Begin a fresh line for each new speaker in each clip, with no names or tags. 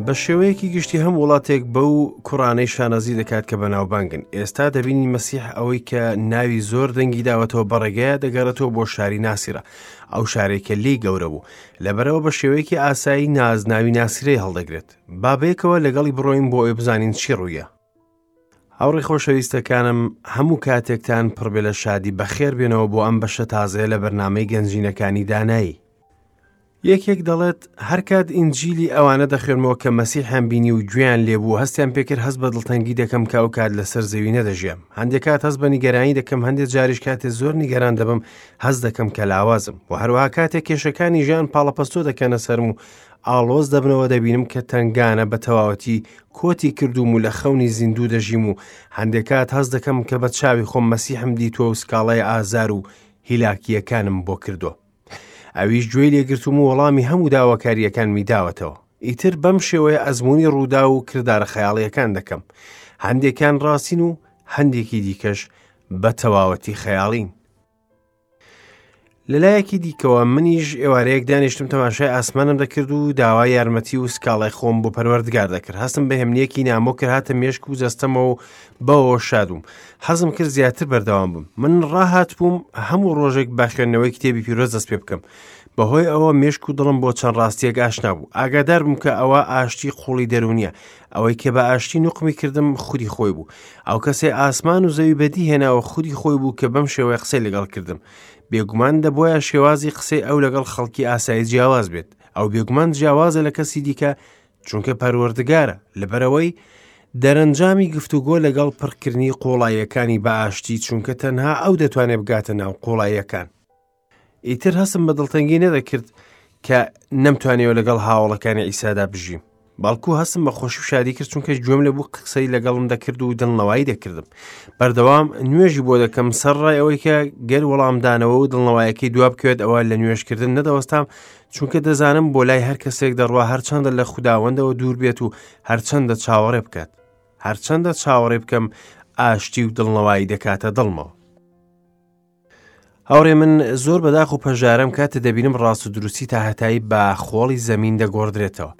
بە شێوەیەکی گشتی هەم وڵاتێک بەو کوڕانەی شانازی دەکات کە بەناوبانگن. ئێستا دەبینین مەسیح ئەوەی کە ناوی زۆر دەنگی داوەتەوە بەڕێگەیە دەگەڕێتەوە بۆ شاری ناسیرە، ئەو شارەی کە لێی گەورە بوو. لەبەرئەوە بە شێوەیەکی ئاسایی نازناوی ناسیرەی هەڵدەگرێت. با بەیەکەوە لەگەڵی بڕۆین بۆ ئەوەی بزانین چی ڕوویە. هاوڕێ خۆشەویستەکانم هەموو کاتێکتان پڕبێ لە شادی بەخێر بێنەوە بۆ ئەم بەشە تازەیە لە بەرنامەی گەنجینەکانی دانایی. یەکێک دەڵێت هەرکات ئینجیلی ئەوانە دەخوێنمەوە کە مەسیحیان بینی و گوێیان لێبوو هەستیان پێکرد هەست بە دڵتەنگی دەکەم کە ئەو کات لەسەر زەوی نەدەژیام هەندێک کات هەست بە نیگەرانی دەکەم هەندێک جاریش کاتێ زۆر نیگەران دەبم هەست دەکەم کە لاوازم و هەروەها کاتێک کێشەکانی ژیان پاڵەپەستۆ دەکەنە سەرم و ئاڵۆز دەبنەوە دەبینم کە تەنگانە بە تەواوەتی کۆتی کردووم و لە خەونی زیندوو دەژیم و هەندێک کات هەست دەکەم کە بە چاوی خۆم مەسیحم دیتووە و سکاڵای ئازار و هیلاکییەکانم بۆ کردووە. ئەویش گوێی لێگرتوم و وەڵامی هەموو داواکارییەکانمی داوەتەوە. ئیتر بەم شێوەیە ئەزموونی ڕووداو و کردارە خەیاڵییەکان دەکەم. هەندێکیان ڕاستین و هەندێکی دیکەش بە تەواوەتی خەیاڵین. لەلایەکی دیکەوە منیش ئێوارەیەک دانیشتم تەماشای ئاسمانم دەکرد و داوای یارمەتی و سکاڵای خۆم بۆ پەروەردگار دەکرد هەستم بە هێمنیەکی نامۆ کرد هاتە مێشک و جەستەمەوە و بەوەوە شاد بووم حەزم کرد زیاتر بەردەوام بم من ڕاهات بووم هەموو ڕۆژێک بە خوێندنەوەی کتێبی پیرۆز دەست پێ بکەم بەهۆی ئەوە مێشک و دڵم بۆ چەند ڕاستیەک ئاشنا بوو ئاگادار بووم کە ئەوە ئاشتی قوڵی دەرونیە ئەوەی کە بە ئاشتی نوقمی کردم خودی خۆی بوو ئەو کەسەی ئاسمان و زەوی بەدی هێناوە خودی خۆی بوو کە بەم شێوەیە قسەی لەگەڵ کردم بێگومان دەبواە شێوازی قسەی ئەو لەگەڵ خەڵکی ئاسایی جیاواز بێت ئەو بێگومان جیاوازە لە کەسی دیکە چونکە پەروەردگارە لەبەرەوەی دەرەنجامی گفتوگۆ لەگەڵ پڕکردنی قوڵاییەکانی بە ئاشتی چونکە تەنها ئەو دەتوانێت بگاتە ناو قوڵاییەکان ئیتر هەستم بە دڵتەنگی نەدەکرد کە نەمتوانیەوە لەگەڵ هاوڵەکانی ئیسادا بژیم بەڵکو هەستم بە خۆشی و شادی کرد چونکە گوێم لە بوو قسەی لەگەڵم دەکرد و دڵنەوایی دەکردم بەردەوام نوێژی بۆ دەکەم سەر ڕای ئەوەی کە گەر وەڵامدانەوە و دڵنەوایەکەی دوا بکەوێت ئەوە لە نوێژکردن نەدەوەستام چونکە دەزانم بۆ لای هەر کەسێک دەڕوا هەرچەندە لە خوداوەندەوە دوور بێت و هەرچەندە چاوەڕێ بکات هەرچەندە چاوەڕێ بکەم ئاشتی و دڵنەوایی دەکاتە دڵمەوە هاوڕێ من زۆر بەداخ و پەژارەم کاتێ دەبینم ڕاست و دروستی تا هەتایی بە خۆڵی زەمین دەگۆڕدرێتەوە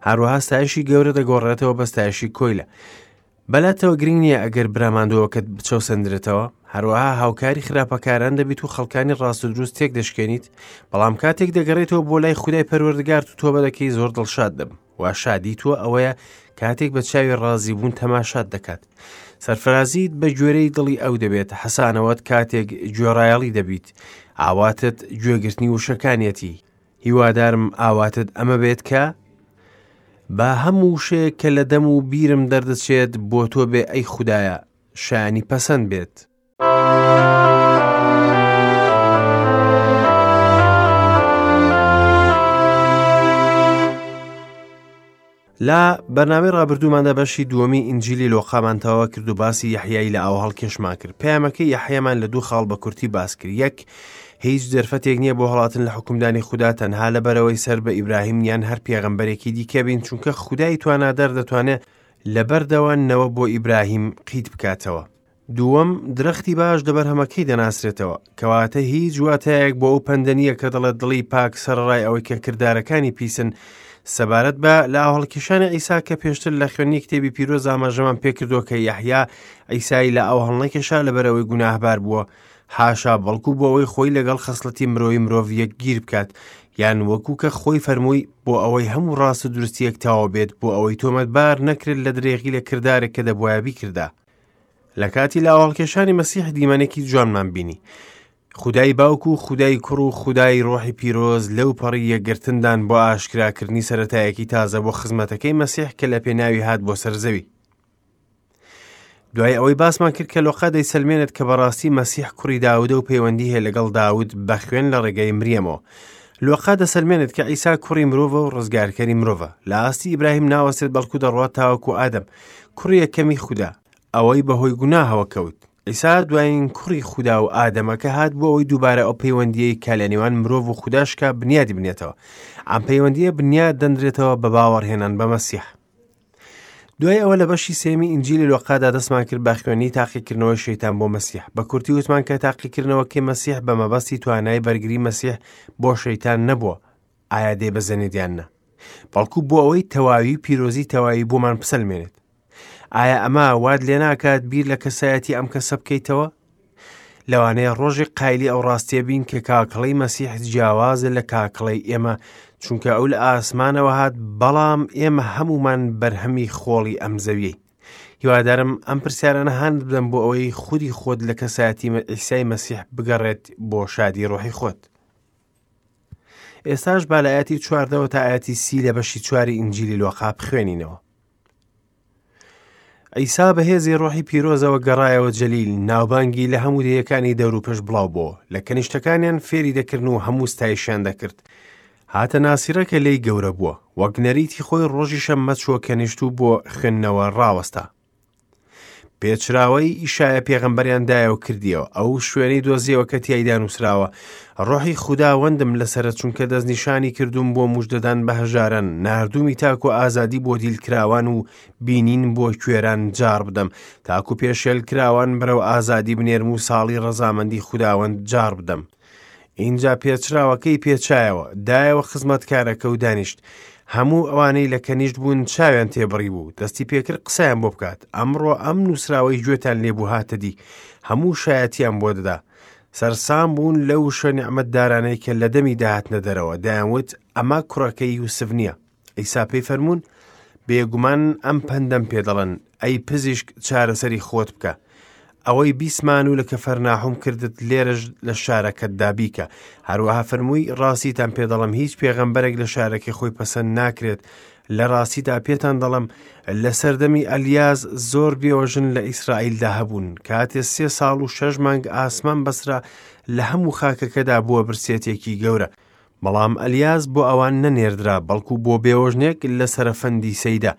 هەروەها ستایشی گەورە دەگۆڕێتەوە بە ستایشی کۆیلە بەلاتەوە گرنگ نییە ئەگەر براماندووەکەت بچەوسەندرێتەوە هەروەها هاوکاری خراپەکاران دەبیت و خەڵکانی ڕاست و دروست تێک دەشکێنیت بەڵام کاتێک دەگەڕێتەوە بۆ لای خودای پەروەردگارت و تۆبە دەکەی زۆر دڵشاد دەبم وا شادی تۆ ئەوەیە کاتێک بە چاوی ڕازی بوون تەماشات دەکات سەرفرازیت بە گوێرەی دڵی ئەو دەبێت حەسانەوەت کاتێک گوێڕایەڵی دەبیت ئاواتت گوێگرتنی وشەکانیەتی هیوادارم ئاواتت ئەمە بێت کە با هەموو وشەیەک کە لە دەم و بیرم دەردەچێت بۆ تۆ بێ ئەی خودایە شایانی پەسەند بێت. لە بەرنامەی ڕابردووماندا بەشی دووەمی ئینجیلی لۆقامان تەواو کرد و باسی یەحیای لە ئاو هەڵکێشمان کرد پەیامەکەی یەحیامان لە دوو خاڵ بە کورتی باس کرد یەک هیچ دەرفەتێک نییە بۆ هەڵاتن لە حکومدانی خودا تەنها لەبەرەوەی سەر بە ئیبراهیم یان هەر پێغەمبەرێکی دیکە بین چونکە خودای توانادار دەتوانێت لەبەردەوە نەوە بۆ ئیبراهیم قیت بکاتەوە دووەم، درەختی باش لە بەرهەمەکەی دەناسرێتەوە، کەواتە هیچ واتایەک بۆ ئەو پەندە نییە کە دەڵێت دڵی پاک سەرەڕای ئەوەی کە کردارەکانی پیسن، سەبارەت بە لەئاوهەڵکێشانی عیسا کە پێشتر لە خوێندنی کتێبی پیرۆز ئاماژەمان پێکردووە کە یەحیا عیسای لە ئاو هەڵنەکێشا لەبەرئەوەی گوناهبار بووە، حاشا بەڵکو بۆ ئەوەی خۆی لەگەڵ خەسڵەتی مرۆیی مرۆڤ یەکگیر بکات، یان وەکو کە خۆی فەرمووی بۆ ئەوەی هەموو ڕاست و دروستییەک تەواو بێت بۆ ئەوەی تۆمەتبار نەکرێت لە درێغی لە کردارێک کە دەبوایە بیکردا. لە کاتی لاوەڵکێشانی مەسیح دیمەنێکی جوانمان بینی. خودای باوک و خودای کوڕ و خودای ڕۆحی پیرۆز لەو پەڕی یەکگرتندان بۆ ئاشکراکردنی سەرەتایەکی تازە بۆ خزمەتەکەی مەسیح کە لە پێناوی هات بۆ سەر زەوی. دوای ئەوەی باسمان کرد کە لۆقا دەیسەلمێنێت کە بەڕاستی مەسیح کوڕی داودە و پەیوەندی هەیە لەگەڵ داود بە خوێن لە ڕێگەی مریەمەوە. لۆقا دەسەلمێنێت کە عیسا کوڕی مرۆڤە و ڕزگارکەری مرۆڤە. لە ئاستی ئیبراهیم ناوەستێت بەڵکو دەڕوات تاوەکو ئادەم، کوڕی یەکەمی خودا، ئەوەی بەهۆی گوناهەوە کەوت. عیسا دوایین کوڕی خودا و ئادەمە کە هات بۆ ئەوەی دووبارە ئەو پەیوەندییەی کە لە نێوان مرۆڤ و خودا شکا بنیادی بنێتەوە. ئەم پەیوەندییە بنیاد دەنرێتەوە بە باوەڕهێنان بە مەسیح. دوای ئەوە لە بەشی سێمی ئینجیلی لۆقادا دەستمان کرد بە خوێندنی تاقیکردنەوەی شەیتان بۆ مەسیح. بە کورتی وتمان کە تاقیکردنەوەکەی مەسیح بە مەبەستی توانای بەرگری مەسیح بۆ شەیتان نەبووە، ئایا دەیبەزێنێت یان نا. بەڵکو بۆ ئەوەی تەواوی و پیرۆزی تەواوی بۆمان بسەلمێنێت. ئایا ئەمە وات لێ ناکات بیر لە کەسایەتی ئەم کەسە بکەیتەوە؟ لەوانەیە ڕۆژێک قایلی ئەو ڕاستیە بین کە کاکڵەی مەسیح جیاوازە لە کاکڵەی ئێمە چونکە ئەو لە ئاسمانەوە هات بەڵام ئێمە هەمومان بەرهەمی خۆڵی ئەم زەویەی هیوادارم ئەم پرسیارانە هاند بدەم بۆ ئەوەی خودی خۆت لە کەسایەتی ئیسای مەسیح بگەڕێت بۆ شادی ڕۆحی خۆت ئێستاش با لە ئاەتی چواردەوە تا ئاەتی سی لە بەشی چواری ئینجیلی لۆقا بخوێنینەوە عیسا بە هێزی ڕۆحی پیرۆزەوە گەڕایەوە جەلیل، ناوبانگی لە هەموو دێیەکانی دەوروپشت بڵاو بۆوە. لە کەنیشتەکانیان فێری دەکردن و هەموو ستایشیان دەکرد. هاتە ناسیرە کە لێی گەورە بووە. وەک نەریتی خۆی ڕۆژی شەممە چووە کەنیشت و بۆ خوێندنەوە ڕاوەستا. پێچراوەی ئیشایە پێغەمبەریان دایە و کردیەوە. ئەو شوێنەی دۆزیەوە کە تیایدا نووسراوە، ڕۆحی خوداوەندم لەسەرە چونکە دەستنیشانی کردووم بۆ مژدەدان بە هەژاران، ناردوومی تاکو ئازادی بۆ دیلکراوان و بینین بۆ کوێران جاڕ بدەم، تاکو پێشێلکراوان بەرەو ئازادی بنێرم و ساڵی ڕەزامەندی خوداوەند جاڕ بدەم. ئینجا پێچراوەکەی پێچایەوە، دایەوە خزمەتکارەکە و دانیشت. هەموو ئەوانەی لە کەنیشت بوون چاویان تێبڕی بوو، دەستی پێکرد قسەیان بۆ بکات. ئەمڕۆ ئەم نووسراوەی گوێتان لێبوو هاتە دی، هەموو شایەتیان بۆ دەدا. سەرسام بوون لەو وشە نیعمەتدارانەی کە لە دەمی دەهاتنە دەرەوە، دەیانوت، ئەمە کوڕەکەی یوسف نییە. عیسا پێی فەرموون، بێگومان ئەم پەندەم پێ دەڵێن، ئەی پزیشک چارەسەری خۆت بکە. ئەوەی بیسمان و لە کەفەرناحوم کردت لێرەش لە شارەکەتدا بیکە. هەروەها فەرمووی، ڕاستیتان پێ دەڵێم هیچ پێغەمبەرێک لە شارەکەی خۆی پەسەند ناکرێت. لە ڕاستیدا پێتان دەڵێم لە سەردەمی ئەلیاس زۆر بێوەژن لە ئیسرائیلدا هەبوون. کاتێ سێ ساڵ و شەش مانگ ئاسمان بەسرا لە هەموو خاکەکەدا بووە برسێتێکی گەورە. بەڵام ئەلیاس بۆ ئەوان نەنێردرا، بەڵکو بۆ بێوەژنێک لە سەرەفەندی سەیدا.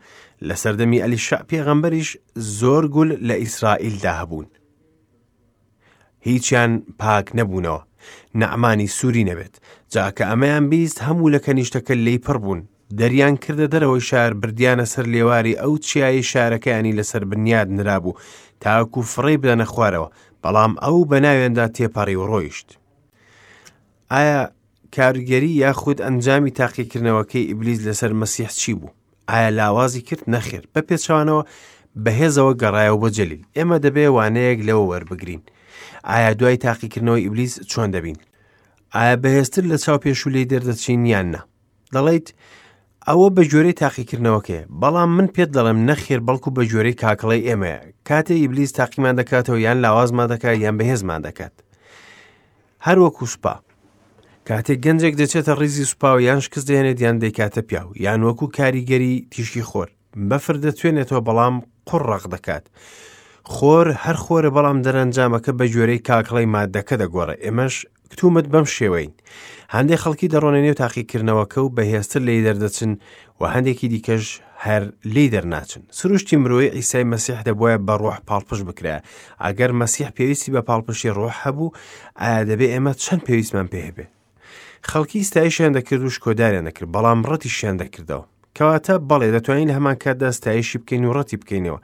لە سەردەمی ئەلیشەع پێغەمبەریش زۆر گول لە ئیسرائیلدا هەبوون. هیچیان پاک نەبوونەوە، نەعمانی سووری نەبێت. جا کە ئەمەیان بیست هەموو لە کەنیشتەکە لێی پڕ بوون. دەریان کردە دەرەوەی شار، بردیانە سەر لێواری ئەو چیایەی شارەکەیانی لەسەر بنیاد نرابوو، تاکو فڕێی بدەنە خوارەوە، بەڵام ئەو بە ناویاندا تێپەڕی و ڕۆیشت. ئایا کارگەری یاخود ئەنجامی تاقیکردنەوەکەی ئیبلیس لەسەر مەسیح چی بوو؟ ئایا لاوازی کرد؟ نەخێر، بە پێچەوانەوە بەهێزەوە گەڕایەوە بۆ جەلیل. ئێمە دەبێ وانەیەک لەوە وەربگرین. ئایا دوای تاقیکردنەوەی ئیبلیس چۆن دەبین؟ ئایا بەهێزتر لە چاو پێشوو لێی دەردەچین یان نا؟ دەڵێیت ئەوە بە گوێرەی تاقیکردنەوەکەیە، بەڵام من پێت دەڵێم نەخێر، بەڵکو بە گوێرەی کاکڵەی ئێمەیە. کاتێ ئیبلیس تاقیمان دەکاتەوە یان لاوازمان دەکات یان بەهێزمان دەکات. هەر وەکو سوپا. کاتێک گەنجێک دەچێتە ڕیزی سوپاوە یان شکست دەهێنێت یان دەیکاتە پیاو، یان وەکو کاریگەری تیشکی خۆر. بەفر دەتوێنێتەوە بەڵام قوڕ ڕەق دەکات. خۆر هەر خۆرە بەڵام دەرەنجامەکە بە گوێرەی کاکڵەی مادەکە دەگۆڕێ. ئێمەش کتومت بەم شێوەین. هەندێک خەڵکی دەڕۆنە نێو تاقیکردنەوەکە و بەهێزتر لێی دەردەچن و هەندێکی دیکەش هەر لێی دەرناچن. سروشتی مرۆیی عیسای مەسیح دەبوایە بە ڕۆح پاڵپشت بکرایە. ئەگەر مەسیح پێویستی بە پاڵپشتی ڕۆح هەبوو، ئایا دەبێ ئێمە چەند پێویستمان پێ هەبێ؟ خەڵکی ستایشیان دەکرد و شکۆداریان دەکرد، بەڵام ڕەتیشیان دەکردەوە. کەواتە بەڵێ دەتوانین لە هەمان کاتدا ستایشی بکەین و ڕەتی بکەینەوە.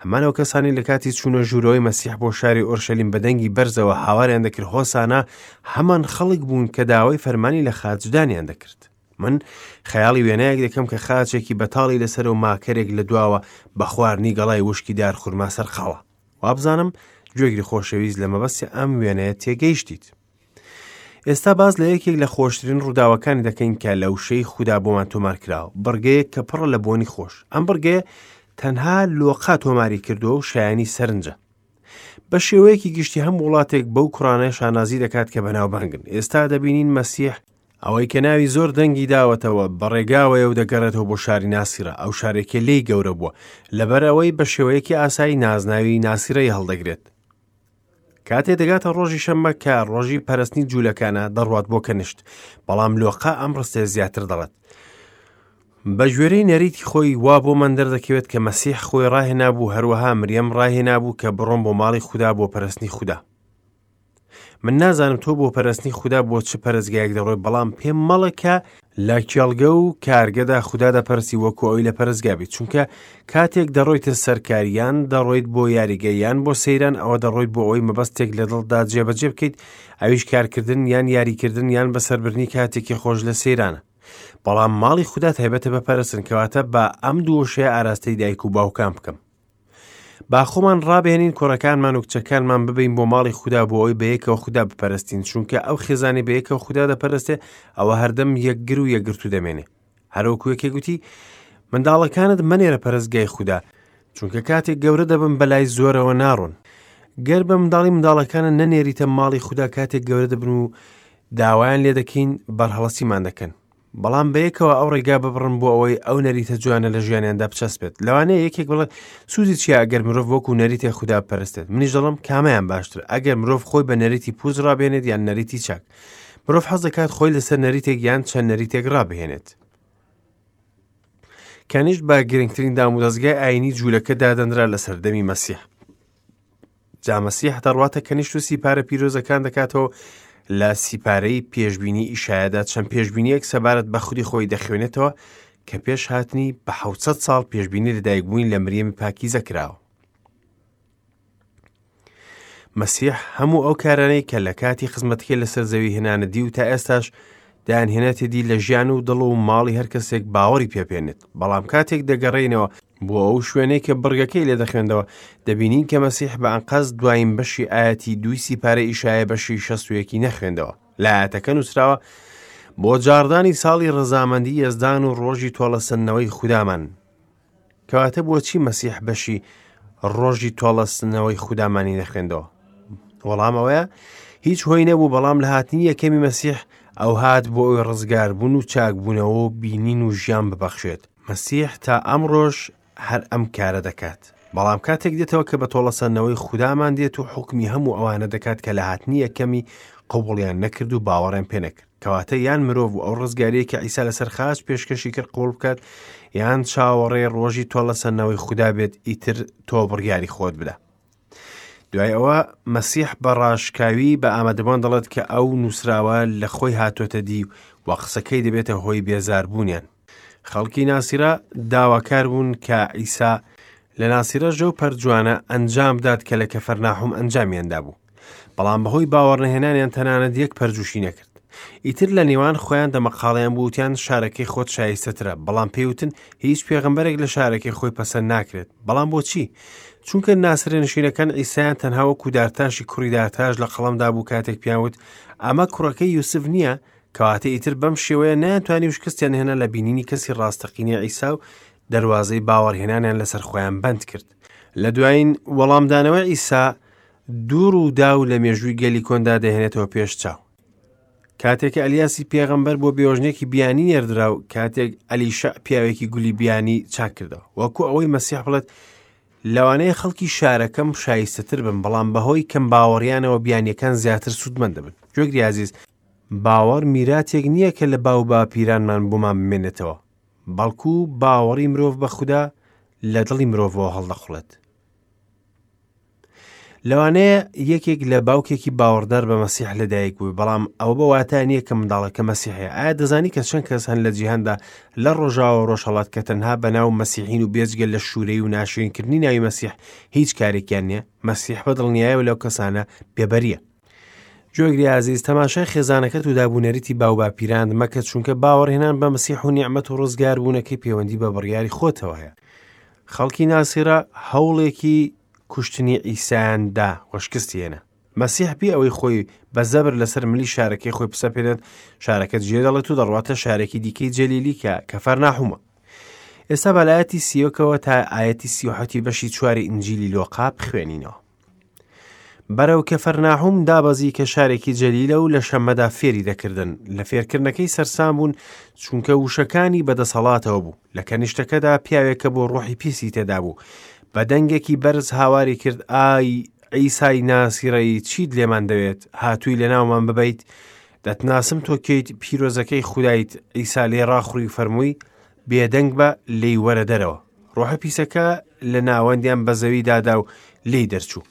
هەمان ئەو کەسانی لە کاتی چوونە ژوورەوەی مەسیح بۆ شاری ئۆرشەلیم بە دەنگی بەرزەوە هاواریان دەکرد هۆسانا، هەمان خەڵک بوون کە داوای فەرمانی لە خاچدانیان دەکرد. من خەیاڵی وێنایەک دەکەم کە خاچێکی بەتاڵی لەسەر و ماکەرێک لە دواوە بە خواردنی گەڵای وشکی دار خورما سەرقاڵە. وابزانم گوێگری خۆشەویست لە مەبەستی ئەم وێنەیە تێگەیشتیت. ئێستا باس لە یەکێک لە خۆشترین ڕووداوەکانی دەکەین کە لە وشەی خودا بۆمان تۆمار کراوە، بڕگەیەک کە پڕە لە بۆنی خۆش. ئەم بڕگەیە تەنها لۆقا تۆماری کردووە و شایانی سەرنجە. بە شێوەیەکی گشتی هەم وڵاتێک بەو کوڕانە شانازی دەکات کە بەناوبانگن. ئێستا دەبینین مەسیح ئەوەی کە ناوی زۆر دەنگی داوەتەوە بەڕێگاوەیە و دەگەڕێتەوە بۆ شاری ناسیرە، ئەو شارێکە لێی گەورە بووە، لەبەر ئەوەی بە شێوەیەکی ئاسایی نازناوی ناسیرەی هەڵدەگرێت. کاتێ دەگاتە ڕۆژی شەممە کە ڕۆژی پەرستنی جوولەکانە دەڕوات بۆ کەنشت، بەڵام لۆقا ئەم ڕستەیە زیاتر دەڵێت. بە گوێرەی نەریتی خۆی وا بۆمان دەردەکەوێت کە مەسیح خۆی ڕاهێنابوو، هەروەها مریەم ڕاهێنابوو کە بڕۆن بۆ ماڵی خودا بۆ پەرستنی خودا. من نازانم تۆ بۆ پەرستنی خودا بۆ چ پەرستگایەک دەڕۆی، بەڵام پێم مەڵێ کە لە کێڵگە و کارگەدا خودا دەپەرستی وەکو ئەوی لە پەرستگا بیت، چونکە کاتێک دەڕۆیتە سەر کار یان دەڕۆیت بۆ یاریگە یان بۆ سەیران، ئەوە دەڕۆیت بۆ ئەوەی مەبەستێک لە دڵتدا جێبەجێ بکەیت، ئەویش کارکردن یان یاریکردن یان بەسەربردنی کاتێکی خۆش لە سەیرانە. بەڵام ماڵی خودا تایبەتە بە پەرستن، کەواتە با ئەم دوو وشەیە ئاراستەی دایک و باوکان بکەم. با خۆمان ڕابهێنین کوڕەکانمان و کچەکانمان ببین بۆ ماڵی خودا بۆ ئەوەی بەیەکەوە خودا بپەرستین، چونکە ئەو خێزانی بەیەکەوە خودا دەپەرستێ ئەوە هەردەم یەکگر و یەکگرتوو دەمێنێ. هەروەکو یەکێک گوتی منداڵەکانت مەنێرە پەرستگای خودا، چونکە کاتێک گەورە دەبن بەلای زۆرەوە ناڕۆن. گەر بە منداڵی منداڵەکانت نەنێریتە ماڵی خودا کاتێک گەورە دەبن و داوایان لێ دەکەین بەرهەڵستیمان دەکەن. بەڵام بەیەکەوە ئەو ڕێگا ببڕن بۆ ئەوەی ئەو نەریتە جوانە لە ژیانیاندا بچەسپێت. لەوانەیە یەکێک بڵێت سوودی چییە ئەگەر مرۆڤ وەکو نەریتێک خودا بپەرستێت؟ منیش دەڵێم کامەیان باشتر، ئەگەر مرۆڤ خۆی بە نەریتی پووچ ڕابێنێت یان نەریتی چاک؟ مرۆڤ حەز دەکات خۆی لەسەر نەریتێک یان چەند نەریتێک ڕابهێنێت. کەنیشت بە گرنگترین دامودەزگای ئایینی جوولەکە دادەنرا لە سەردەمی مەسیح. جا مەسیح دەڕواتە کەنیشت و سیپارە پیرۆزەکان دەکاتەوە لە سیپارەی پێشبینی ئیشایەدا چەند پێشبینیەک سەبارەت بە خودی خۆی دەخوێنێتەوە کە پێش هاتنی بە 600 ساڵ پێشبینی لەدایکبوونی لە مریەمی پاکیزە کراوە. مەسیح هەموو ئەو کارانەی کە لە کاتی خزمەتەکەی لەسەر زەوی هێنانە دی و تا ئێستاش دایانهێنێتە دی لە ژیان و دڵ و ماڵی هەر کەسێک باوەڕی پێبێنێت. بەڵام کاتێک دەگەڕێینەوە بۆ ئەو شوێنەی کە بڕگەکەی لێ دەخوێندەوە، دەبینین کە مەسیح بە ئەنقەست دوایین بەشی ئایەتی دووی سیپارەی ئیشایە بەشی 61 نەخوێندەوە. لە ئایەتەکە نووسراوە، بۆ جاڕدانی ساڵی ڕەزامەندی یەزدان و ڕۆژی تۆڵەسەندنەوەی خودامان. کەواتە بۆچی مەسیح بەشی ڕۆژی تۆڵەسەندنەوەی خودامانی نەخوێندەوە؟ وەڵام ئەوەیە هیچ هۆی نەبوو، بەڵام لە هاتنی یەکەمی مەسیح ئەو هات بۆ ئەوی ڕزگاربوون و چاکبوونەوە و بینین و ژیان ببەخشێت. مەسیح تا ئەمڕۆش هەر ئەم کارە دەکات. بەڵام کاتێک دێتەوە کە بە تۆڵەسەندنەوەی خودامان دێت و حوکمی هەموو ئەوانە دەکات کە لە هاتنی یەکەمی قبوڵیان نەکرد و باوەڕیان پێ نەکرد. کەواتە یان مرۆڤ و ئەو ڕزگاریە کە عیسا لەسەر خاچ پێشکەشی کرد قبوڵ بکات، یان چاوەڕێی ڕۆژی تۆڵەسەندنەوەی خودا بێت، ئیتر تۆ بڕیاری خۆت بدە. دوای ئەوە مەسیح بە ڕاشکاوی بە ئامادەبووان دەڵێت کە ئەو نووسراوە لە خۆی هاتۆتە دی و قسەکەی دەبێتە هۆی بێزاربوونیان. خەڵکی ناسیرە داواکار بوون کە عیسا لە ناسیرە ژەو پەرجوانە ئەنجام بدات کە لە کەفەرناحوم ئەنجامیان دابوو. بەڵام بەهۆی باوەڕنەهێنانیان تەنانەت یەک پەرجوشی نەکرد. ئیتر لە نێوان خۆیان دەمەقاڵیان بوو وتیان شارەکەی خۆت شایستەترە، بەڵام پێیوتن هیچ پێغەمبەرێک لە شارەکەی خۆی پەسەند ناکرێت. بەڵام بۆچی؟ چونکە ناسرێنشینەکان عیسایان تەنها وەکو دارتاشی کوڕی دارتاش لە قەڵەمدا بوو کاتێک پیان وت ئەمە کوڕەکەی یوسف نییە، کەواتە ئیتر بەم شێوەیە نەیانتوانی و شکستیان هێنا لە بینینی کەسی ڕاستەقینەی عیسا و دەروازەی باوەڕهێنانیان لەسەر خۆیان بەند کرد. لە دوایین وەڵامدانەوەی عیسا دوو ڕووداو لە مێژووی گەلی کۆندا دەهێنێتەوە پێش چاو. کاتێک کە ئەلیاسی پێغەمبەر بۆ بێوەژنێکی بیانی نێردرا و کاتێک ئەلیشع پیاوێکی گولی بیانی چاک کردەوە. وەکو ئەوەی مەسیح بڵێت لەوانەیە خەڵکی شارەکەم شایستەتر بن، بەڵام بەهۆی کەم باوەڕیانەوە بیانیەکان زیاتر سوودمەند دەبن. گوێگری ئازیز، باوەڕ میراتێک نییە کە لە باو باپیرانمان بۆمان بمێنێتەوە، بەڵکو باوەڕی مرۆڤ بە خودا لە دڵی مرۆڤەوە هەڵدەقوڵێت. لەوانەیە یەکێک لە باوکێکی باوەڕدار بە مەسیح لەدایک بوو، بەڵام ئەوە بە واتا نییە کە منداڵەکە مەسیحیە. ئایا دەزانی کە چەند کەس هەن لە جیهاندا لە ڕۆژاوە و ڕۆژهەڵات کە تەنها بە ناو مەسیحین و بێجگە لە شوورەی و ناشرینکردنی ناوی مەسیح هیچ کارێکیان نییە؟ مەسیح بە دڵنیایەوە لەو کەسانە بێبەریە. گوێگری ئازیز، تەماشای خێزانەکەت و دابونەریتی باوباپیراند مەکە، چونکە باوەڕهێنان بە مەسیح و نیعمەت و ڕزگاربوونەکەی پەیوەندی بە بڕیاری خۆتەوە هەیە. خەڵکی ناسیرە هەوڵێکی کوشتنی عیسایان دا و شکستی هێنا. مەسیح بێ ئەوەی خۆی بە زەبر لەسەر ملی شارەکەی خۆی بسەپێنێت، شارەکە جێدەڵێت و دەڕواتە شارێکی دیکەی جەلیلی کە کەفەرناحومە. ئێستا بە لایەتی سیۆکەوە تا ئایەتی سیوحەتی بەشی چواری ئینجیلی لۆقا بخوێنینەوە. بەرەو کەفەرناحوم دابەزی کە شارێکی جەلیلە و لە شەممەدا فێری دەکردن. لە فێرکردنەکەی سەرسام بوون، چونکە وشەکانی بەدەسەڵاتەوە بوو. لە کەنیشتەکەدا پیاوێک کە بۆ ڕۆحی پیسی تێدا بوو، بە دەنگێکی بەرز هاواری کرد، ئای عیسای ناسیڕەیی، چیت لێمان دەوێت؟ هاتووی لەناومان ببەیت؟ دەتناسم تۆ کێیت، پیرۆزەکەی خودایت. عیسا لێی ڕاخوڕی و فەرمووی، بێدەنگ بە، لێی وەرە دەرەوە. ڕۆحە پیسەکە لە ناوەندیان بە زەوی دادا و لێی دەرچوو.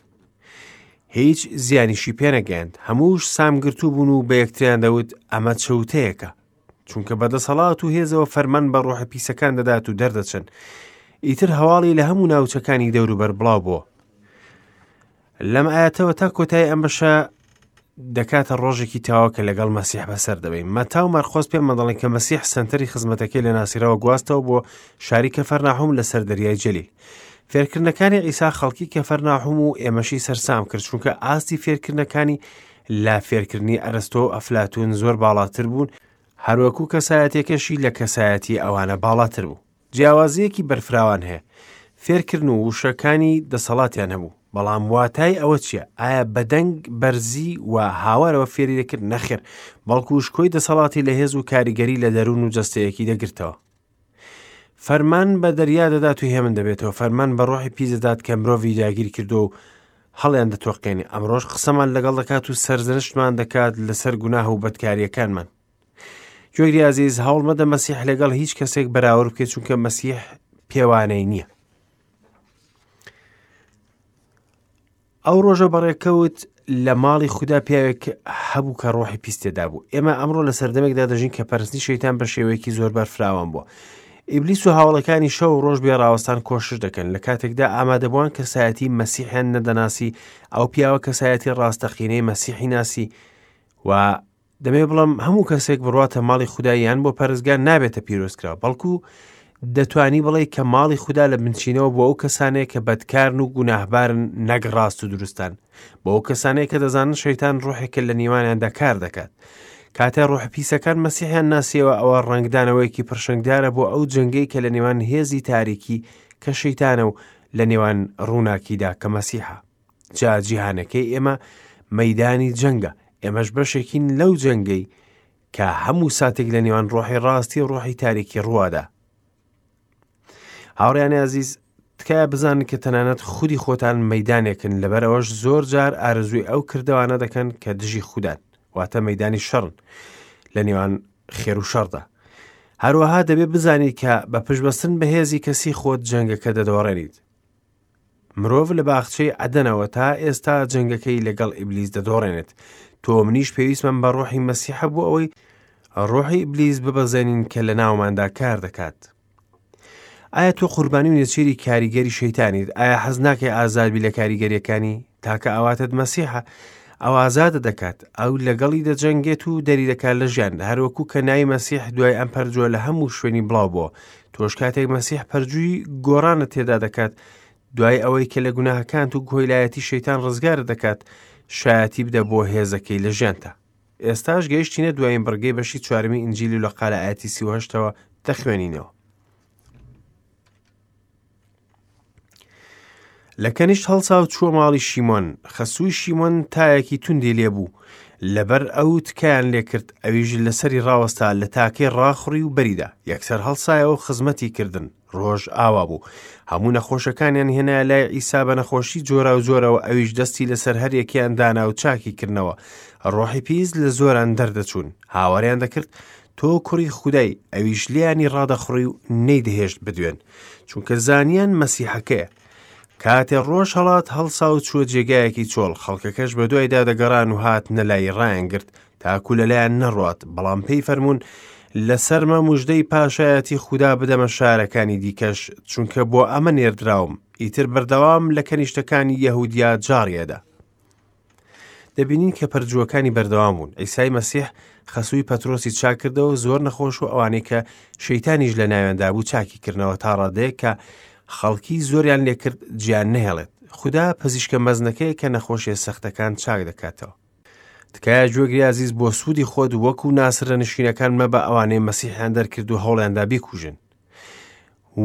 هیچ زیانیشی پێنەگەیاند. هەمووش سامگرتوو بوون و بە یەکتریان دەوت، ئەمە چەوتەیەکە. چونکە بە دەسەڵات و هێزەوە فەرمان بە ڕۆحە پیسەکان دەدات و دەردەچن. ئیتر هەواڵی لە هەموو ناوچەکانی دەوروبەر بڵاو بووە. لەم ئاەتەوە تا کۆتایی ئەم بەشە دەکاتە ڕۆژێکی تەواو کە لەگەڵ مەسیح بەسەر دەبەین. مەتا و مەرقۆس پێمان دەڵێن کە مەسیح سەنتەری خزمەتەکەی لە ناسیرەوە گواستەوە بۆ شاری کەفەرناحوم لەسەر دەریای جەلیل. فێرکردنەکانی عیسا خەڵکی کەفەرناحوم و ئێمەشی سەرسام کرد چونکە ئاستی فێرکردنەکانی لە فێرکردنی ئەرستۆ و ئەفلاتون زۆر باڵاتر بوون هەروەکو کەسایەتیەکەشی لە کەسایەتی ئەوانە باڵاتر بوو. جیاوازییەکی بەرفراوان هەیە. فێرکردن و وشەکانی دەسەڵاتیان هەبوو، بەڵام واتای ئەوە چییە؟ ئایا بە دەنگ بەرزی و هاوارەوە فێری دەکرد؟ نەخێر، بەڵکو شکۆی دەسەڵاتی لە هێز و کاریگەری لە دەروون و جەستەیەکی دەگرتەوە. فەرمان بە دەریا دەدات و هێمن دەبێتەوە، فەرمان بە ڕۆحی پیس دەدات کە مرۆڤی داگیر کردووە و هەڵیان دەتۆقێنێ. ئەمڕۆش قسەمان لەگەڵ دەکات و سەرزەنشتمان دەکات لەسەر گوناه و بەدکارییەکانمان. گوێگری ئازیز هەوڵ مەدە مەسیح لەگەڵ هیچ کەسێک بەراورد بکەیت چونکە مەسیح پێوانەی نییە. ئەو ڕۆژە بەڕێکەوت لە ماڵی خودا پیاوێک هەبوو کە ڕۆحی پیس تێدا بوو ئێمە ئەمڕۆ لە سەردەمێکدا دەژین کە پەرستنی شەیتان بە شێوەیەکی زۆر بەرفراوان بووە ئیبلیس و هاوڵەکانی شەو و ڕۆژ بێ ڕاوەستان کۆشش دەکەن لە کاتێکدا ئامادەبووان کەسایەتی مەسیحیان نەدەناسی ئەو پیاوە کەسایەتی ڕاستەقینەی مەسیحی ناسی و دەمەوێت بڵێم هەموو کەسێک بڕواتە ماڵی خودا یان بۆ پەرستگا نابێتە پیرۆزکراو بەڵکو دەتوانی بڵێ کە ماڵی خودا لە بنچینەوە بۆ ئەو کەسانەیە کە بەدکارن و گوناهبارن نەک ڕاست و دروستان بۆ ئەو کەسانەیە کە دەزانن شەیتان ڕۆحێکە لە نێوانیاندا کار دەکات کاتێ ڕۆح پیسەکان مەسیحیان ناسیەوە ئەوە ڕەنگدانەوەیەکی پرشنگدارە بۆ ئەو جەنگەی کە لە نێوان هێزی تاریکی کە شەیتانە و لە نێوان ڕووناکیدا کە مەسیحە جا جیهانەکەی ئێمە مەدانی جەنگە ئێمەش بەشێکین لەو جەنگەی کە هەموو ساتێک لە نێوان ڕۆحی ڕاستی و ڕۆحی تاریکی ڕوادا هاوڕیانی ئازیز تکایە بزانن کە تەنانەت خودی خۆتان مەدانێکن لەبەر ئەوەش زۆر جار ئارەزووی ئەو کردوانە دەکەن کە دژی خوددان واتە مەدانی شەڕن لە نێوان خێر و شەڕدا هەروەها دەبێت بزانیت کە بە پشتبەستن بە هێزی کەسی خۆت جەنگەکە دەدۆڕێنیت مرۆڤ لە باخچەی عەدەنەوە تا ئێستا جەنگەکەی لەگەڵ ئیبلیس دەدۆڕێنێت. تۆ و منیش پێویستمان بە ڕۆحی مەسیحە بۆ ئەوەی ڕۆحی ئیبلیس ببەزێنین کە لە ناوماندا کار دەکات. ئایا تۆ قوربانی و نێچیری کاریگەری شەیتانیت؟ ئایا حەز ناکەی ئازادبی لە کاریگەریەکانی؟ تاکە ئاواتت مەسیحە ئەو ئازادە دەکات ئەو لەگەڵی دەجەنگێت و دەری دەکات لە ژیان هەروەکو کە ناوی مەسیح دوای ئەم پەرجووە لە هەموو شوێنی بڵاو بووە تۆش کاتێک مەسیح پەرجووی گۆڕانت تێدا دەکات دوای ئەوەی کە لە گوناهەکانت و کۆیلایەتی شەیتان ڕزگارت دەکات شایەتی بدە بۆ هێزەکەی لە ژیانتا ئێستاش گەیشتینە دوایین بڕگەی بەشی چوارەمی ئینجیلی لوقا لە ئایەتی 38ەوە دەخوێنینەوە لە کەنیشت هەڵسا و چووە ماڵی شیمۆن، خەسووی شیمۆن تایەکی توندی لێبوو، لەبەر ئەو تکایان لێکرد، ئەویش لەسەری ڕاوەستا، لە تاکەی ڕاخوڕی و بەریدا، یەکسەر هەڵسایەوە و خزمەتی کردن. ڕۆژ ئاوا بوو، هەموو نەخۆشەکانیان هێنایە لای عیسا بە نەخۆشی جۆراوجۆرەوە، ئەویش دەستی لەسەر هەر یەکەیان دانا و چاکی کردنەوە. ڕۆحی پیس لە زۆران دەردەچوون، هاواریان دەکرد، تۆ کوڕی خودای، ئەویش لێیانی ڕادەخوڕی و نەیدەهێشت بدوێن، چونکە زانیان مەسیحەکەیە. کاتێ ڕۆژ هەڵات هەڵسا و چووە جێگایەکی چۆڵ، خەڵکەکەش بەدوایدا دەگەڕان و هاتنە لای ڕایانگرت، تاکو لەلایان نەڕوات، بەڵام پێی فەرموون، لەسەرمە مژدەی پاشایەتی خودا بدەمە شارەکانی دیکەش، چونکە بۆ ئەمە نێردراوم. ئیتر بەردەوام لە کەنیشتەکانی یەهودیا جاڕیەدا. دەبینین کە پەرجووەکانی بەردەوام بوون ئیسای مەسیح خەسووی پەترۆسی چاکردەوە زۆر نەخۆش و ئەوانەی کە شەیتانیش لە ناویاندا بوو چاکی کردنەوە تا ڕادەیەک کە خەڵکی زۆریان لێکرد جیان نەهێڵێت خودا پزیشکە مەزنەکەیە کە نەخۆشیە سەختەکان چاک دەکاتەوە تکایە گوێگری ئازیز بۆ سوودی خۆت وەکو ناسرە نشینەکان مەبە ئەوانەی مەسیحیان دەرکرد و هەوڵیاندا بیکوژن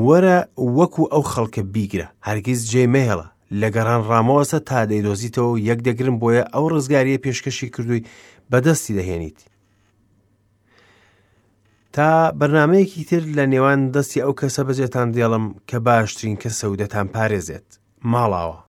وەرە وەکو ئەو خەڵکە بیگرە، هەرگیز جێی مەهێڵە، لە گەڕان ڕامەوەستە تا دەیدۆزیتەوە و یەک دەگرن بۆیە ئەو ڕزگارییە پێشکەشی کردووی بەدەستی دەهێنیت. تا بەرنمەیەکی تر لە نێوان دەستی ئەو کەسە بەجێتان دێڵم کە باشترین کەسە و دەتان پارێزێت. ماڵاوە.